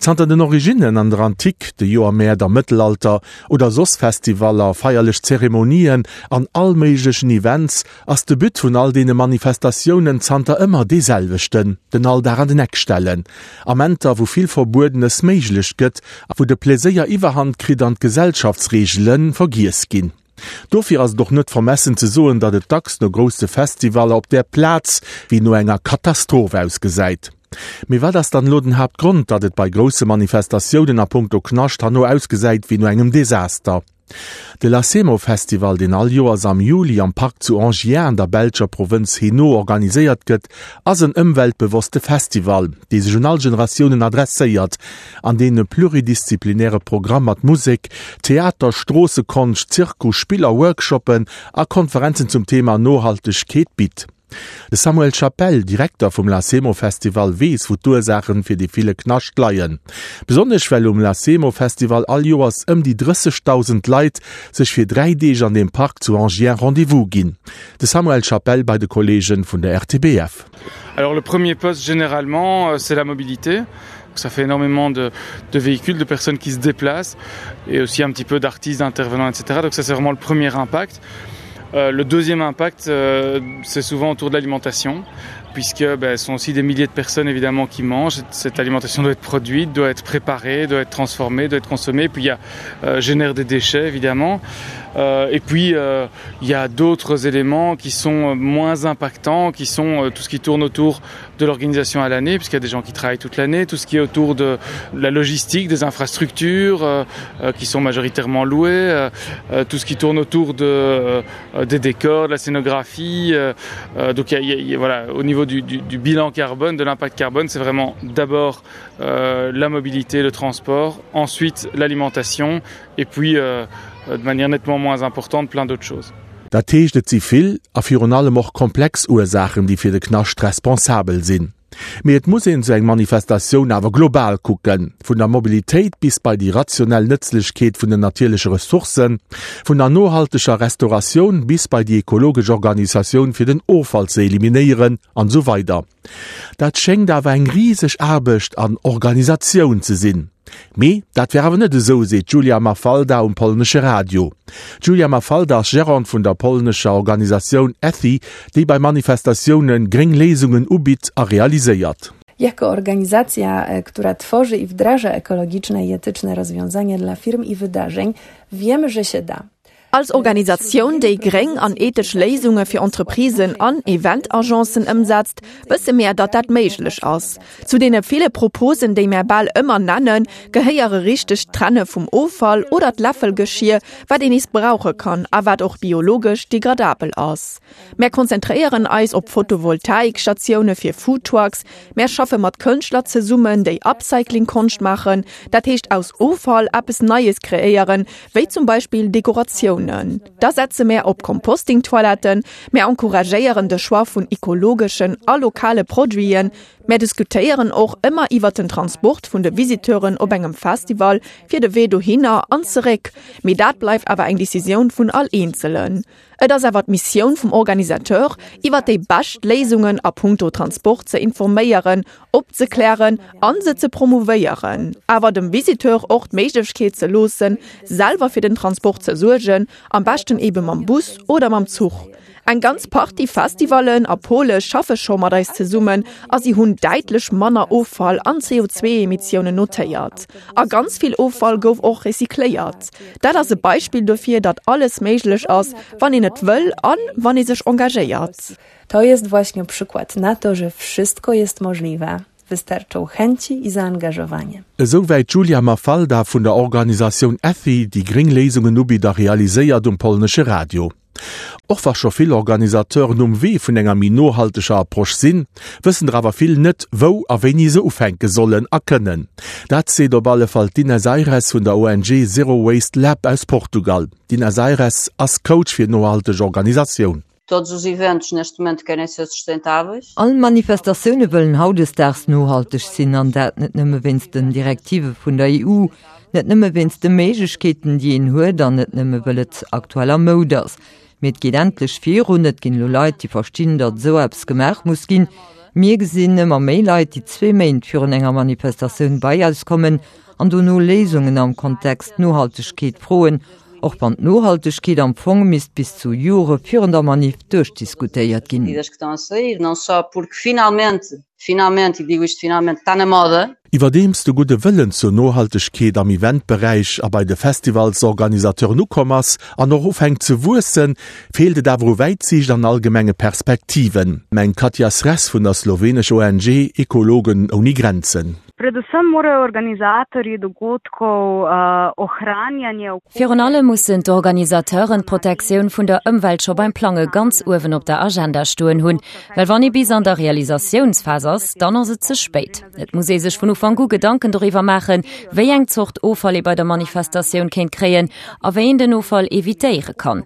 Zanter den Originnen an der Antik, de Joermäert am Mëttelalter oder soss Festivaller, feierlech Zeremonien an all méiglechen Events, ass de But vun all deene Manifestatiounen zanter ëmmer dee selwechten, den Alldag an den Eck stellen. Amenter, wou vill Verbuedenes méiglech gëtt a wou de Pleséier Iwwerhand kritt an d'Gesellschaftsreegele vergiess ginn. Dofir ass et och net vermessen ze soen, datt et dacks no grousse Festivaller op der Plaz wéi no enger Katastroph ausgesäit. Mee wat ass dann elo den Haaptgrond, datt et bei grousse Manifestatiounen a punkto Knascht herno ausgesäit wéi no engem Desaster? De Lacemo Festival, deen all Joers am Juli am Park zu Enghien an der belscher Provënz Hainaut organiséiert gëtt, ass en ëmweltbewosste Festival, dee sech un all Generatiounen adresséiert an deen e pluridisziplinäre Programm mat Musek, Theater, Stroossekonscht, Zirkus, Spiller, Workshoppen a Konferenzen zum Thema Nohaltegkeet bitt. De Samuel Chapelle, Direkter vum Lacemo Festival, weess wou d'Ursaachen fir dee ville Knascht leien. Besonnesch well um Lacemo Festival all Joers ëm déi 30.000 Leit sech fir 3 Deeg an deem Park zu Enghien Rendez-vous ginn. De Samuel Chapelle bei de Kolleegen vun der RTBF. Alors le premier poste généralement c'est la mobilité. Ça fait énormément de, de véhicules, de personnes qui se déplacent et aussi un petit peu d'artistes, d'intervenants, etc. Donc ça c'est vraiment le premier impact. Euh, le deuxième impact, euh, c'est souvent autour de l'alimentation, puisque ben, ce sont aussi des milliers de personnes évidemment qui mangent. Cette alimentation doit être produite, doit être préparée, doit être transformée, doit être consommée, puis il y a, euh, génère des déchets évidemment. Euh, et puis euh, il y a d'autres éléments qui sont euh, moins impactants, qui sont euh, tout ce qui tourne autour de l'organisation à l'année, puisqu'il y a des gens qui travaillent toute l'année, tout ce qui est autour de la logistique, des infrastructures euh, euh, qui sont majoritairement louées, euh, euh, tout ce qui tourne autour de, euh, des décors, de la scénographie. Euh, euh, donc y a, y a, voilà, au niveau du, du, du bilan carbone, de l'impact carbone, c'est vraiment d'abord euh, la mobilité, le transport, ensuite l'alimentation et puis euh, de manière nettement moins importante plein d'autres choses. Dat heescht, et si vill a virun allem och komplex Ursaachen, déi fir de Knascht responsabel sinn. Mee et muss een esou eng Manifestatioun awer global kucken, vun der Mobilitéit bis bei déi rationell Nëtzlechkeet vun den natierleche Ressourcen, vun der nohalteger Restauratioun bis bei déi ekologesch Organisatioun fir den Offall ze eliminéieren an esou weider. Dat schéngt awer eng riseg Aarbecht an Organisatioun ze sinn. Mee dat wär awer net esou, seet d'Julia Mafalda um polnesche Radio. D'Julia Mafalda ass Gerante vun der polnescher Organisatioun ETHI, déi bei Manifestatioune gréng Léisungen ubitt a realiséiert. Jako organizacja, która tworzy i wdraża ekologiczne i etyczne rozwiązania dla firm i wydarzeń, wiemy, że się da. Als Organisatioun, déi gréng an ethesch Léisunge fir Entreprisen an Eventagencen ëmsetzt, wësse mär, datt dat méiglech ass. Zu deene ville Proposen, déi mär bal ëmmer nennen, gehéiere richtegt Trenne vum Offall oder d'Läffelgeschier, wat een nees brauche kann a wat och biologesch degradabel ass. Mär konzentréieren eis op Photovoltaikstatioune fir Foodtrucks, mär schaffe mat Kënschtler zesummen, déi Upcycling-Konscht maachen, dat heescht aus Offall eppes Neies kreéieren, wéi zum Beispill Dekoratiounen. Da setze mär op Composting-Toiletten, mär encouragéieren de Choix vun ekologeschen a lokale Produiten, mär diskutéieren och ëmmer iwwert den Transport vun de Visiteuren op engem Festival fir de Wee dohinner an zeréck, mee dat bleift awer eng Decisioun vun all Eenzelen. Et ass awer d'Missioun vum Organisateur, iwwer déi bescht Léisungen a punkto Transport ze informéieren, opzeklären a se ze promouvéieren, awer dem Visiteur och d'Méiglechkeet ze loossen, selwer fir den Transport ze suergen, am beschten ebe mam Bus oder mam Zuch. Eng ganz Partie Festivallen a Pole schaffe scho mat eis zesummen a si hunn däitlech manner Offall an CO2-Emissiounen notéiert. A ganz vill Offall gouf och recycléiert. Dat ass e Beispill dofir, datt alles méiglech ass, wann een et wëll an wann ee sech engagéiert. To jest właśnie przykład na to, że wszystko jest możliwe, wystarczą chęci i zaangażowanie. Esou wäit d'Julia Mafalda vun der Organisatioun Ethy, déi gréng Léisungen ubitt a realiséiert, um polnesche Radio. Och wa scho vill Organisateuren um Wee vun enger méi nohalteger Approche sinn, wëssen der awer vill net, wou a wéini se ufänke sollen a kënnen. Dat seet op alle Fall d'Ines Aires vun der ONG Zero Waste Lab aus Portugal. D'Ines Aires ass Coach fir nohalteg Organisatioun. Todos os eventos neste momento querem ser sustentáveis. All Manifestatioune wëllen hautdesdaags nohalteg sinn, an dat net nëmme wéinst den Direktive vun der EU, net nëmme wéinst de Méiglechkeeten, déi een huet, an net nëmme wëll et aktuell a Moud ass. Mee et geet endlech virun, et ginn elo Leit, déi verstinn, datt esou eppes gemaach muss ginn. Mir gesinn ëmmer méi Leit, déi zwee Méint virun enger Manifestatioun bei eis kommen an dono Léisungen am Kontext Nohaltegkeet froen, och wann d'Nohaltegkeet am Fong misst bis zu Jore virun der Manif duerchdiskutéiert ginn. Finalmente, e digo isto finalmente, está na moda. Iwwerdeems de gudde Wëllen zur Nohaltegkeet am Eventberäich a bei de Festivalsorganisateuren ukomm ass an och ufänkt ze wuessen, feelt et awer u Wäitsiicht an allgemenge Perspektiven, mengt d'Katja Sres vun der slowenescher ONG Ekologen ouni Grenzen. Predvsem morajo organizatorji dogodkov ohranjanje okolja. Virun allem mussen d'Organisateuren d'Protektioun vun der Ëmwelt scho beim Plange ganz uewen op der Agenda stoen hunn. Well wann ee bis an der Realisatiounsphas ass, dann ass et ze spéit. Et muss ee sech vun Ufank u Gedanken doriwwer maachen, wéi eng Zort Offall ee bei der Manifestatioun kéint kréien a wéi een den Offall evitéiere kann.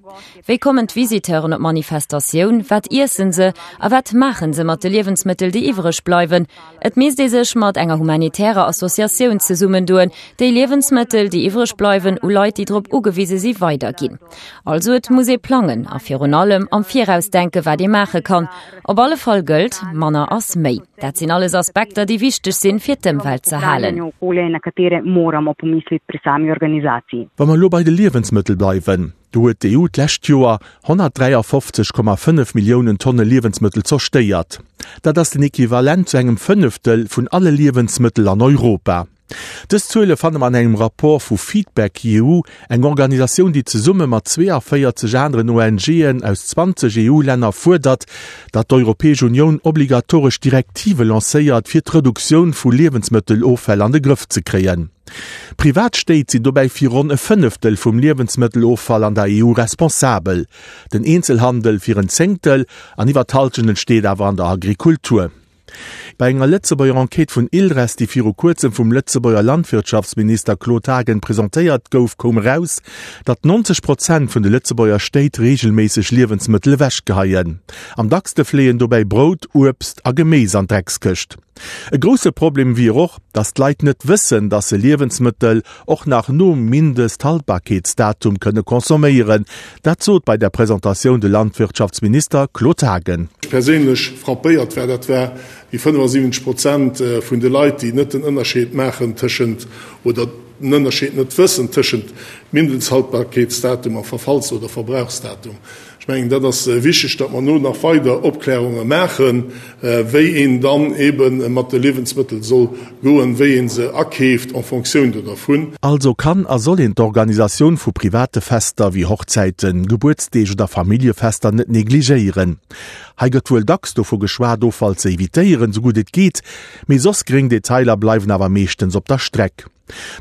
Wéi kommen d'Visiteuren op d'Manifestatioun, wat iessen se a wat maachen se mat de Liewensmëttel, déi iwwereg bleiwen? Et misst ee sech mat enger humanitärer Associatioun zesummendoen, déi Liewensmëttel, déi iwwereg bleiwen, u Leit, déi drop ugewise si weiderginn. Also et muss ee plangen a virun allem am Viraus denken, wat ee maache kann. Op alle Fall gëllt, manner ass méi. Dat sinn alles Aspekter, déi wichteg sinn, fir d'Ëmwelt ze halen. Wa mer elo bei de Liewensmëttel bleiwen, do huet d'EU d'lescht Joer 153,5 Milliounen Tonne Liewensmëttel zerstéiert. Dat ass den Equivalent zu engem Fënneftel vun alle Liewensmëttel an Europa. Dës Zuele fanne mer an engem Rapport vu Feedback EU, eng Organisatioun, déi zesumme mat 42 aneren ONGen aus 20 EU-Länner fuerdert, datt d'Europäesch Unioun obligatoresch Direktive lancéiert, fir d'Reduktioun vu Liewensmëtteloffäll an de Grëff ze kréien. Privat Stéit sinn dobäi fir ronn e Fënneftel vum Liewensmëtteloffall an der EU responsabel, den Eenzelhandel fir en Zéngtel an iwwer d'Hallschent entsteet awer an der Agrikultur. Bei enger Lëtzebuerger Enquête vun ILRES, déi viru kuerzem vum Lëtzebuerger Landwirtschaftsminister Claude Haagen presentéiert gouf, koum eraus, datt 90 Prozent vun de Lëtzebuerger Stéit reegelméisseg Liewensmëttel ewechgeheien. Am dackste fléien dobäi Brout, Uebst a Geméis an d'Dreckskëscht. E grousse Problem wier och, datt d'Leit net wëssen, datt se Liewensmëttel och nach nom Mindesthaltbarkeetsdatum kënne consomméieren. Dat sot bei der Presentatioun de Landwirtschaftsminister Claude Haagen. Mech perséinlech frappéiert war, dat war déi 75 Prozent vun de Leit, déi net den Ënnerscheed maachen tëschent, oder den Ënnerscheed net wëssen tëschent Mindesthaltbarkeetsdatum a Verfalls oder Verbrauchsdatum. Ech mengen, dat ass wichteg, datt mer no nach weider Opklärunge maachen, wéi een dann eebe mat de Liewensmëttel soll goen, wéi ee se akeeft en fonction do dervun. Also kann a soll een d'Organisatioun vu private Fester wéi Hochzäiten, Gebuertsdeeg oder Familljefester net negligéieren. Hei gëtt wuel dacks dovu geschwat, Offall ze evitéieren, sou gutt et geet, mee soss gréng Detailer bleiwen awer meeschtens op der Streck.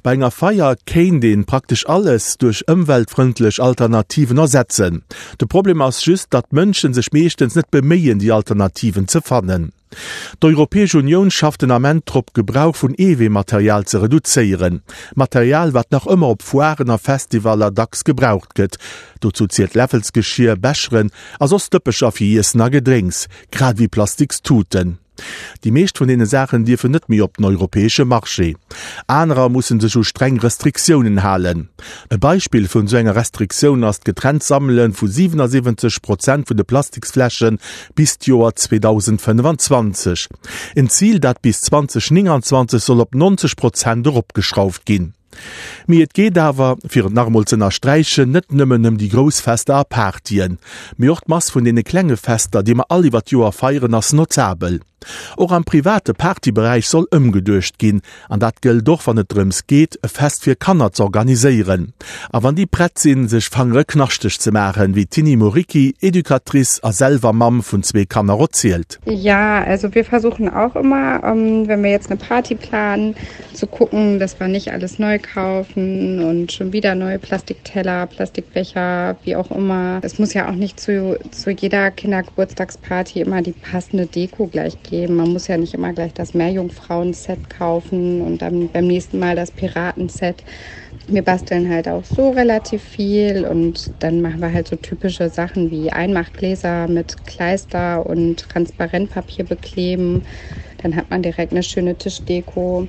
Bei enger Feier kéint een praktesch alles duerch ëmweltfrëndlech Alternativen ersetzen. De Problem ass just, datt d'Mënschen sech meeschtens net beméien déi Alternativen ze fannen. D'Europäesch Unioun schafft den Ament drop Gebrauch vun Eeweematerial ze reduzéieren. Material wat nach ëmmer op Foiren a Festivaller dacks gebraucht gëtt. Dozou zielt Läffelsgeschier, Becheren a soss Dëppecher fir Iessen a Gedrénks, grad ewéi plastiks Tuten. Déi meescht vun deene Saachen dierfen net méi op den europäesche Marché. Anerer musse sech u streng Restriktiounen halen. E Beispill vun esou enger Restriktioun ass d'getrennt Sammele vu 77 Prozent vun de Plastiksfläsche bis d'Joer 2025. En Zil, dat bis 2029 soll op 90 Prozent eropgeschrauft ginn. Mee et geet awer, fir et nach emol z'ënnersträichen, net nëmmen ëm déi grouss Fester a Partyen, mee och d'Mass vun deene klenge Fester, déi mer all iwwer d'Joer feieren, ass notabel. Och am private Partyberäich soll ëmgeduecht ginn, an dat gëllt och, wann et drëms geet, e Fest fir Kanner z'organiséieren. A wann déi prett sinn, sech Fangere knaschteg ze maachen, wéi d'Tiny Muricchi, Educatrice a selwer Mamm vun zwee Kanner, erzielt. Ja, also wir versuchen auch immer, wenn wir jetzt eine Party planen, zu gucken, dass wir nicht alles neu kaufen und schon wieder neue Plastikteller, Plastikbecher, wie auch immer. Es muss ja auch nicht zu, zu jeder Kindergeburtstagsparty immer die passende Deko gleich geben. Man muss ja nicht immer gleich das Meerjungfrauen-Set kaufen und dann beim nächsten Mal das Piraten-Set. Wir basteln halt auch so relativ viel und dann machen wir halt so typische Sachen wie Einmachgläser mit Kleister und Transparentpapier bekleben. Dann hat man direkt eine schöne Tischdeko.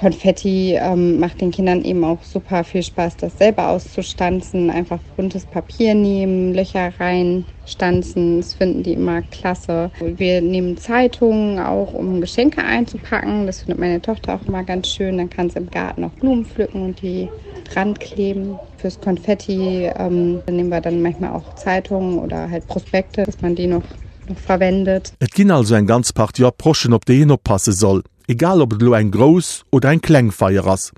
Konfetti ähm, macht den Kindern eben auch super viel Spaß, das selber auszustanzen, einfach buntes Papier nehmen, Löcher reinstanzen, das finden die immer klasse. Wir nehmen Zeitungen auch, um Geschenke einzupacken. Das findet meine Tochter auch immer ganz schön. Dann kann sie im Garten auch Blumen pflücken und die dran kleben. Fürs Konfetti ähm, nehmen wir dann manchmal auch Zeitungen oder halt Prospekte, dass man die noch noch verwendet. Et ginn also eng ganz Partie Approchen, op déi een oppasse soll, egal ob et elo eng grouss oder eng kleng Feier ass.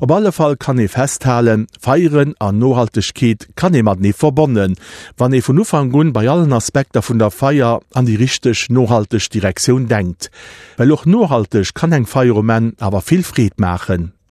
Op alle Fall kann ee festhalen, Feieren an Nohaltegkeet kann ee matenee verbonnen, wann ee vun Ufank un bei allen Aspekter vun der Feier an déi richteg nohalteg Direktioun denkt. Well och nohalteg kann eng Feier um Enn awer vill Freed maachen.